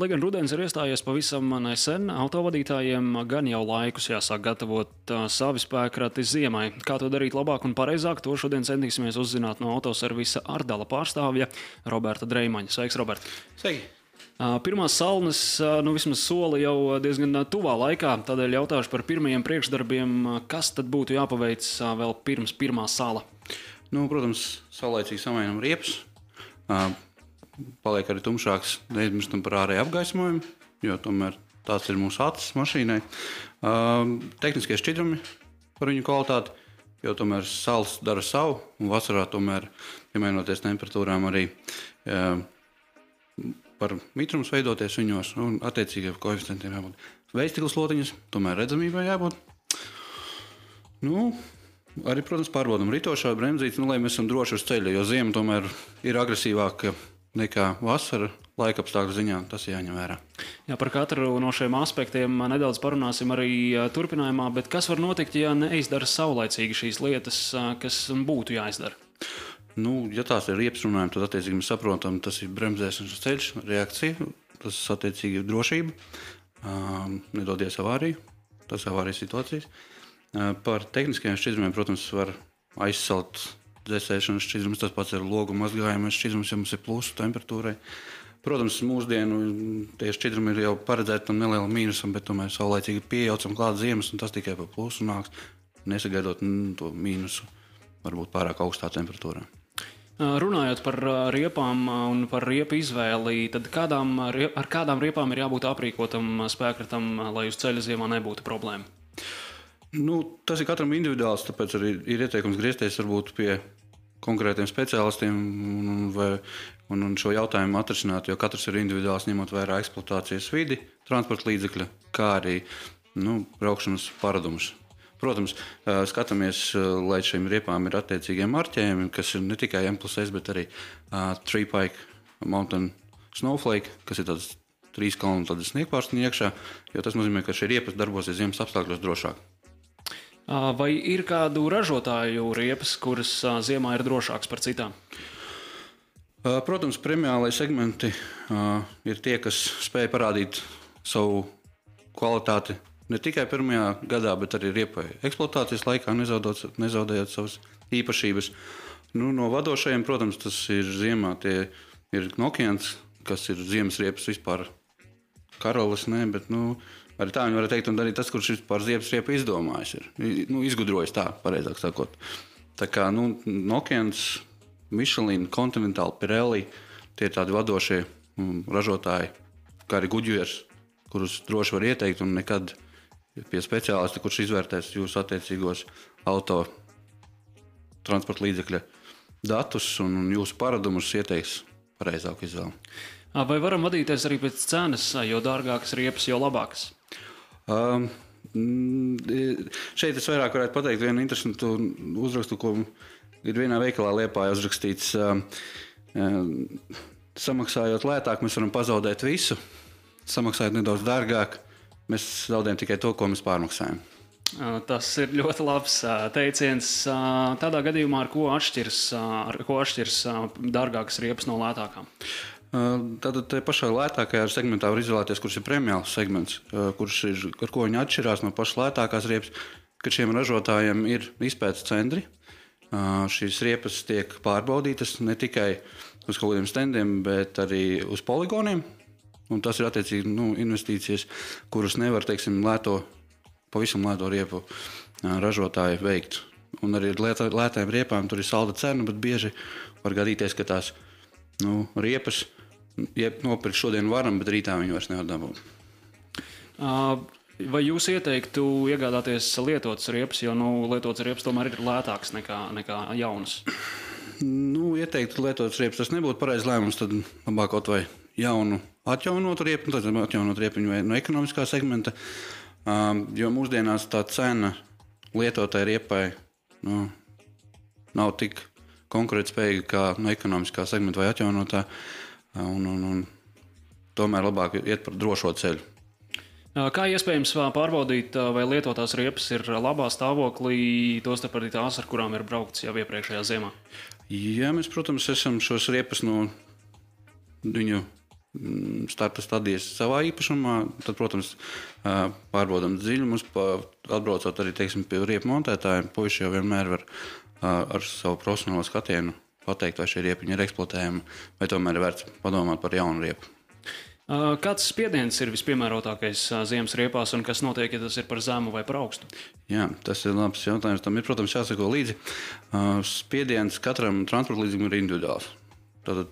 Lai gan rudens ir iestājies pavisam nesen, autovadītājiem gan jau laikus jāsāk gatavot savi spēkrati ziemai. Kā to darīt labāk un pareizāk, to šodien centīsimies uzzināt no autoservisa Ardala pārstāvja Roberta Dreimaņa. Sveiks, Robert! Sveiki! Pirmās salnas, vismaz soli jau diezgan tuvā laikā, tādēļ jautāšu par pirmajiem priekšdarbiem, kas tad būtu jāpaveic vēl pirms pirmā sala? Protams, saulaicīgi samainām riepas. Paliek arī tumšāks, neaizmirstam par ārēju apgaismojumu, jo tomēr tāds ir mūsu acis mašīnai. Tehniskie šķidrumi par viņu kvalitāti, jo tomēr sals dara savu, un vasarā tomēr, piemainoties temperatūrām, arī par mitrums veidoties viņos, un attiecīgiem koeficientiem jābūt. Vējstikla slotiņas, tomēr redzamībai jābūt. Arī, protams, pārbaudam ritošā bremzītes, lai mēs esam droši uz ceļa, jo ziema tomēr ir agresīvāka nekā vasara laikapstākļu ziņā, tas jāņem vērā. Jā, par katru no šiem aspektiem nedaudz parunāsim arī turpinājumā, bet kas var notikt, ja neizdara saulaicīgi šīs lietas, kas būtu jāizdara? Ja tās ir riepas runājumi, tad attiecīgi mēs saprotam, tas ir bremzēšanas ceļš, reakcija, tas attiecīgi ir drošība, nedodies avāriju, tas avārijas situācijas. Par tehniskajiem šķidrumiem, protams, var aizsalt dzēsēšanas šķidrums, tas pats ir logu mazgājumais šķidrums, ja mums ir plusu temperatūrai. Protams, mūsdienu tie šķidrumi ir jau paredzēti tam nelielu mīnusam, bet tomēr saulaicīgi pieejaucam klāt ziemas, un tas tikai par plusu nāks, nesagaidot to mīnusu, varbūt pārāk augstā temperatūrā. Runājot par riepām un par riepu izvēli, tad ar kādām riepām ir jābūt aprīkotam spēkratam, lai uz ceļa ziemā nebūtu problēma? Tas ir katram individuāls, tāpēc arī ir ieteikums griezties varbūt pie konkrētiem speciālistiem un šo jautājumu atrisināt, jo katrs ir individuāls, ņemot vērā eksploatācijas vidi, transporta līdzekļa, kā arī braukšanas paradumus. Protams, skatāmies, lai šīm riepām ir attiecīgie marķējumi, kas ir ne tikai M+S, bet arī Three Pike Mountain Snowflake, kas ir tāds 3 kalnu sniegpārstiņa iekšā, jo tas nozīmē, ka šie riepas darbosies ziemas apstākļos drošāk. Vai ir kādu ražotāju riepas, kuras ziemā ir drošāks par citām? Protams, premiālai segmenti ir tie, kas spēj parādīt savu kvalitāti ne tikai pirmajā gadā, bet arī riepai eksploatācijas laikā, nezaudējot savas īpašības. No vadošajiem, protams, tas ir ziemā. Tie ir Nokians, kas ir ziemas riepas vispār karalis, bet arī tā viņi var teikt, un arī tas, kurš vispār ziemas riepu izdomājis ir. Izgudrojis tā, pareizāk sakot. Tā kā Nokians, Michelin, Continental, Pirelli, tie ir tādi vadošie ražotāji, kā arī Goodyears, kurus droši var ieteikt un nekad pie speciālista, kurš izvērtēs jūsu attiecīgos auto transporta līdzekļa datus un jūsu paradumus ieteiks pareizāku izvēli. Vai varam vadīties arī pēc cenas, jo dārgākas riepas, jo labākas? Šeit es vairāk varētu pateikt vienu interesantu uzrakstu, ko ir vienā veikalā Liepājā uzrakstīts. Samaksājot lētāk, mēs varam pazaudēt visu. Samaksājot nedaudz dārgāk, mēs zaudējam tikai to, ko mēs pārmaksājam. Tas ir ļoti labs teiciens. Tādā gadījumā ar ko atšķirs dārgākas riepas no lētākām? Tātad te pašā lētākajā segmentā var izvēlēties, kurš ir premiāls segments, ar ko viņi atšķirās no pašas lētākās riepas, ka šiem ražotājiem ir izpētes centri. Šīs riepas tiek pārbaudītas ne tikai uz kaut kādiem standiem, bet arī uz poligoniem. Un tas ir attiecīgi investīcijas, kuras nevar, pavisam lēto riepu ražotāji veikt. Un arī ar lētām riepām tur ir salda cena, bet bieži var gadīties, ka tās riepas nopirkt šodien varam, bet rītā viņi vairs nevar dabūt. Vai jūs ieteiktu iegādāties lietotas riepas, jo lietotas riepas tomēr ir lētākas nekā jaunas? Ieteiktu lietotas riepas, tas nebūtu pareizs lēmums, tad labāk kaut vai jaunu atjaunotu riepu, tad atjaunot riepiņu vai no ekonomiskā segmenta, jo mūsdienās tā cena lietotai riepai nav tik konkurētspējīga kā no ekonomiskā segmenta vai atjaunotā, un tomēr labāk iet par drošo ceļu. Kā iespējams pārbaudīt, vai lietotās riepas ir labā stāvoklī, tostarp arī tās, ar kurām ir braukts jau iepriekšējā ziemā? Jā, mēs, protams, esam šos riepas no viņu starta stadijas savā īpašumā. Tad, protams, pārbaudām dziļumus, atbraucot arī pie riepu montētājiem. Puiši jau vienmēr var ar savu profesionālo skatienu pateikt, vai šie riepiņi ir eksploatējami, vai tomēr ir vērts padomāt par jaunu riepu. Kāds spiediens ir vispiemērotākais ziemas riepās un kas notiek, ja tas ir par zemu vai par augstu? Jā, tas ir labs jautājums. Tam ir, protams, jāsako līdzi. Spiediens katram transporta līdzeklim ir individuāls. Tātad,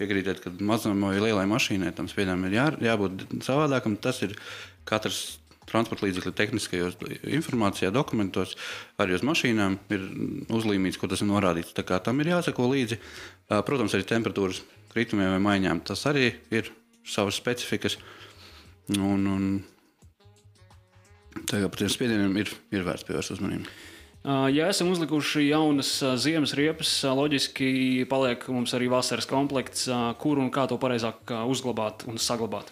piekrītiet, ka mazam vai lielai mašīnai tam spiedienam ir jābūt savādākam. Tas ir katrs transporta līdzekļa tehniskajos informācijā, dokumentos, arī uz mašīnām ir uzlīmīts, ko tas ir norādīts. Tā kā tam ir jāsako līdzi. Protams, arī temperatūras kritumiem vai maiņām. Tas arī ir savas specifikas. Tagad par tiem spiedieniem ir vērts pievērst uzmanību. Ja esam uzlikuši jaunas ziemas riepas, loģiski paliek mums arī vasaras komplekts, kur un kā to pareizāk uzglabāt un saglabāt.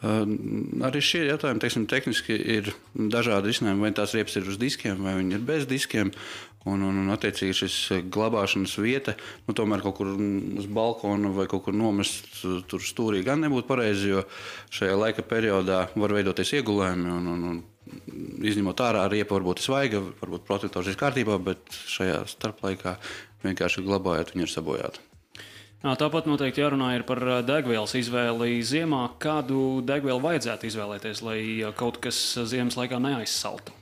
Arī šie jautājumi, tehniski ir dažādi risinājumi, vai tās riepas ir uz diskiem, vai viņi ir bez diskiem. Un attiecīgi šis glabāšanas vieta, tomēr kaut kur uz balkona vai kaut kur nomest tur stūrī gan nebūtu pareizi, jo šajā laika periodā var veidoties iegulējumi un izņemot ārā riepa varbūt ir svaiga, varbūt protektors ir kārtībā, bet šajā starplaikā vienkārši glabājot, viņi ir sabojāti. Tāpat noteikti jārunā ir par degvielas izvēli ziemā. Kādu degvielu vajadzētu izvēlēties, lai kaut kas ziemas laikā neaizsaltu?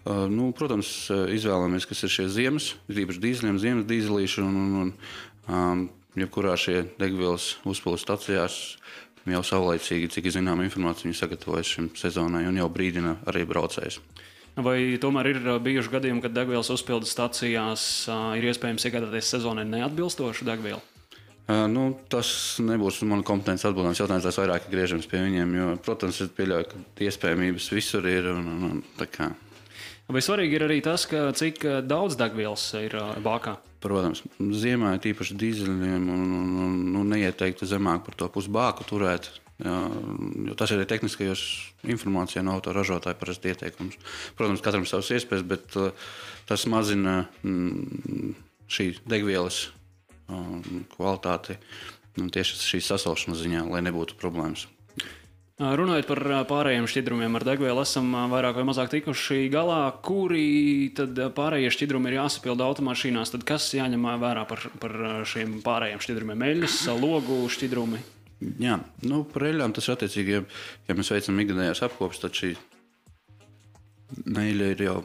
Protams, izvēlamies, kas ir šie ziemas, īpaši dīzeļiem, ziemas dīzelīši un jebkurā šie degvielas uzpildes stacijās jau saulaicīgi, cik zinām informāciju viņi sagatavojas šim sezonai un jau brīdina arī braucējus. Vai tomēr ir bijuši gadījumi, kad degvielas uzpildes stacijās ir iespējams iegādāties sezonai neatbilstošu degvielu? Tas nebūs mana kompetences atbildams jautājums, tās vairāk griežams pie viņiem, jo, protams, es pieļauju, ka iespējamības visur ir un tā kā. Vai svarīgi ir arī tas, cik daudz degvielas ir bākā? Protams, ziemā ir tīpaši dīzeļiem un neieteiktu zemāk par to pusbāku turēt, jo tas ir arī tehniskajos informācijā no autoražotāja parasti ieteikums. Protams, katram savas iespējas, bet tas mazina šī degvielas kvalitāti tieši šīs sasalšanas ziņā, lai nebūtu problēmas. Runājot par pārējiem šķidrumiem ar degvielu, esam vairāk vai mazāk tikuši galā. Kuri tad pārējie šķidrumi ir jāsapilda automašīnās? Tad kas jāņem vērā par šiem pārējiem šķidrumiem? Eļļas, logu šķidrumi? Jā, par eļļām tas ir attiecīgi, ja mēs veicam ikgadējās apkopes, tad šī eļļa ir jau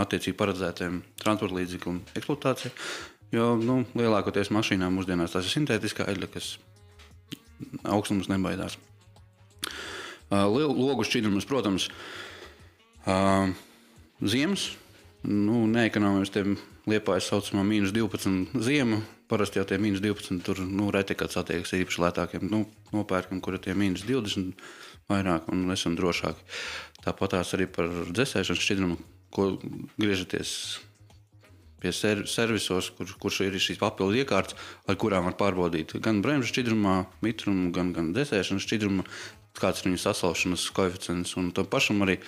attiecīgi paredzētiem transporta līdzekļu eksploatācija. Jo lielākoties mašīnām mūsdienās tas ir sintētiskā eļļa, kas augstums nebaidās. Logu šķidrumus, protams, ziemas, neekonomijas tiem Liepājas saucamā -12 ziemu. Parasti jau tie -12 tur reti kāds attiekas īpaši lētākiem nopērkam, kur ir tie -20 vairāk un esam drošāki. Tāpatās arī par dzesēšanas šķidrumu, ko griežaties pie servisos, kurš ir šīs papildu iekārtas, ar kurām var pārbaudīt gan bremžu šķidrumā, mitrumu, gan dzesēšanas šķidrumu, kāds ir viņu sasalšanas koeficients. Un tam pašam arī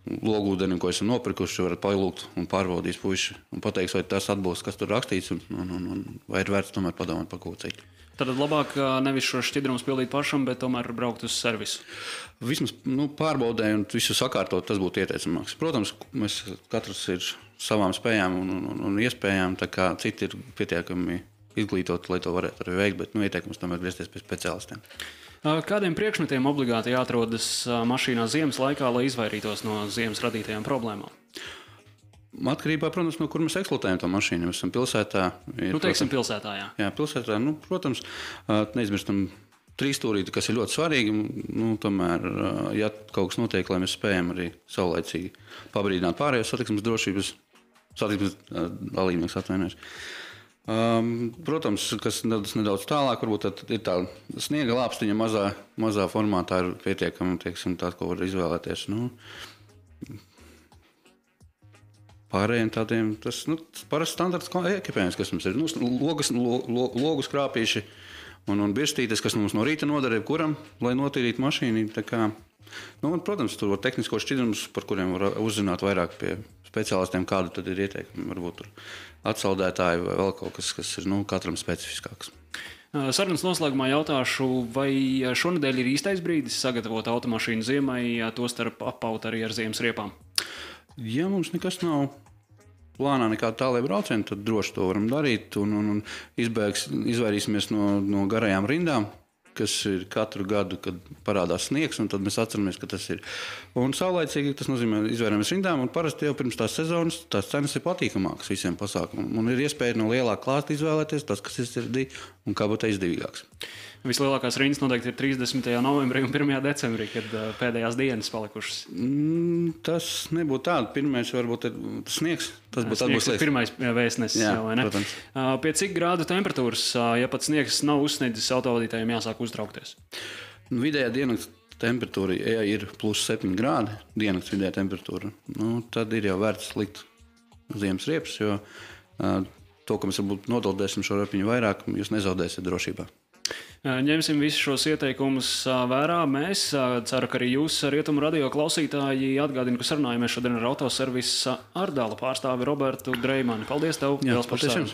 logūdeni, ko esam nopirkuši, varat palūgt un pārbaudīt puiši un pateiks, vai tas atbilst, kas tur rakstīts, un vai ir vērts tomēr padomāt par kaut ko citu. Tad labāk nevis šo šķidrumus pildīt pašam, bet tomēr braukt uz servisu. Vismaz pārbaudē un visu sakārtot, tas būtu ieteicamāks. Protams, mēs katrs ir savām spējām un iespējām, tā kā citi ir pietiekami izglītoti, lai to varētu arī veikt, bet ieteikums tomēr griezties pie speciālistiem. Kādiem priekšmetiem obligāti jāatrodas mašīnā ziemas laikā, lai izvairītos no ziemas radītajām problēmām? Atkarībā, protams, no kur mēs eksploatējam to mašīnu. Mēs esam pilsētā. Teiksim pilsētā, jā. Jā, pilsētā, protams, neizmirstam trīsstūrīti, kas ir ļoti svarīgi. Tomēr, ja kaut kas notiek, lai mēs spējam arī saulaicīgi pabrīdināt pārējos satiksmes dalībnieks atvainojas. Protams, kas nedaudz tālāk, varbūt ir tā sniega lāpstiņa mazā formātā ir pietiekama, tā, ko var izvēlēties. Pārējiem tādiem, tas parasti standarts ekipējums, kas mums ir. Logu skrāpīši un birstītes, kas mums no rīta nodara jebkuram, lai notīrītu mašīnu. Protams, tur var tehniskos šķidrumus, par kuriem var uzzināt vairāk pie speciālistiem, kādu tad ir ieteikumi. Varbūt tur atsaldētāji vai vēl kaut kas ir katram specifiskāks. Sarunas noslēgumā jautāšu, vai šonedēļ ir īstais brīdis sagatavot automašīnu ziemai, tostarp apaut arī ar ziemas riepām? Ja mums nekas nav plānā, nekāda tālēja brauciena, tad droši to varam darīt un izvairīsimies no garajām rindām, kas ir katru gadu, kad parādās sniegs, un tad mēs atceramies, ka tas ir. Un saulaicīgi tas nozīmē izvairāmies rindām, un parasti jau pirms tās sezonas tās cenas ir patīkamākas visiem pasākumiem. Un ir iespēja no lielā klāsta izvēlēties tas, kas ir sirdī un kā būtu izdevīgāks. Vislielākās rindas noteikti ir 30. novembrī un 1. decembrī, kad pēdējās dienas palikušas. Tas nebūtu tāda. Pirmais varbūt ir sniegs. Tas būtu Sniegs ir pirmais vēstnesis. Jā, jau, vai ne? protams. Pie cik grādu temperatūras, ja pat sniegs nav uzsniedzis, autovadītājiem jāsāk uztraukties? Vidējā diennakts temperatūra, ja ir +7 grādi, diennakts vidējā temperatūra, tad ir jau vērts likt ziemas riepas, jo to, ka mēs varbūt nodoldēsim šo repiņu vairāk, jūs nezaudēsiet drošībā. Ņemsim visus šos ieteikumus vērā. Mēs ceru, ka arī jūs, Rietumu radio klausītāji, atgādinu, ka sarunājamies šodien ar autoservisa Ardala pārstāvi Robertu Dreimani. Paldies tev! Jā, Paldies!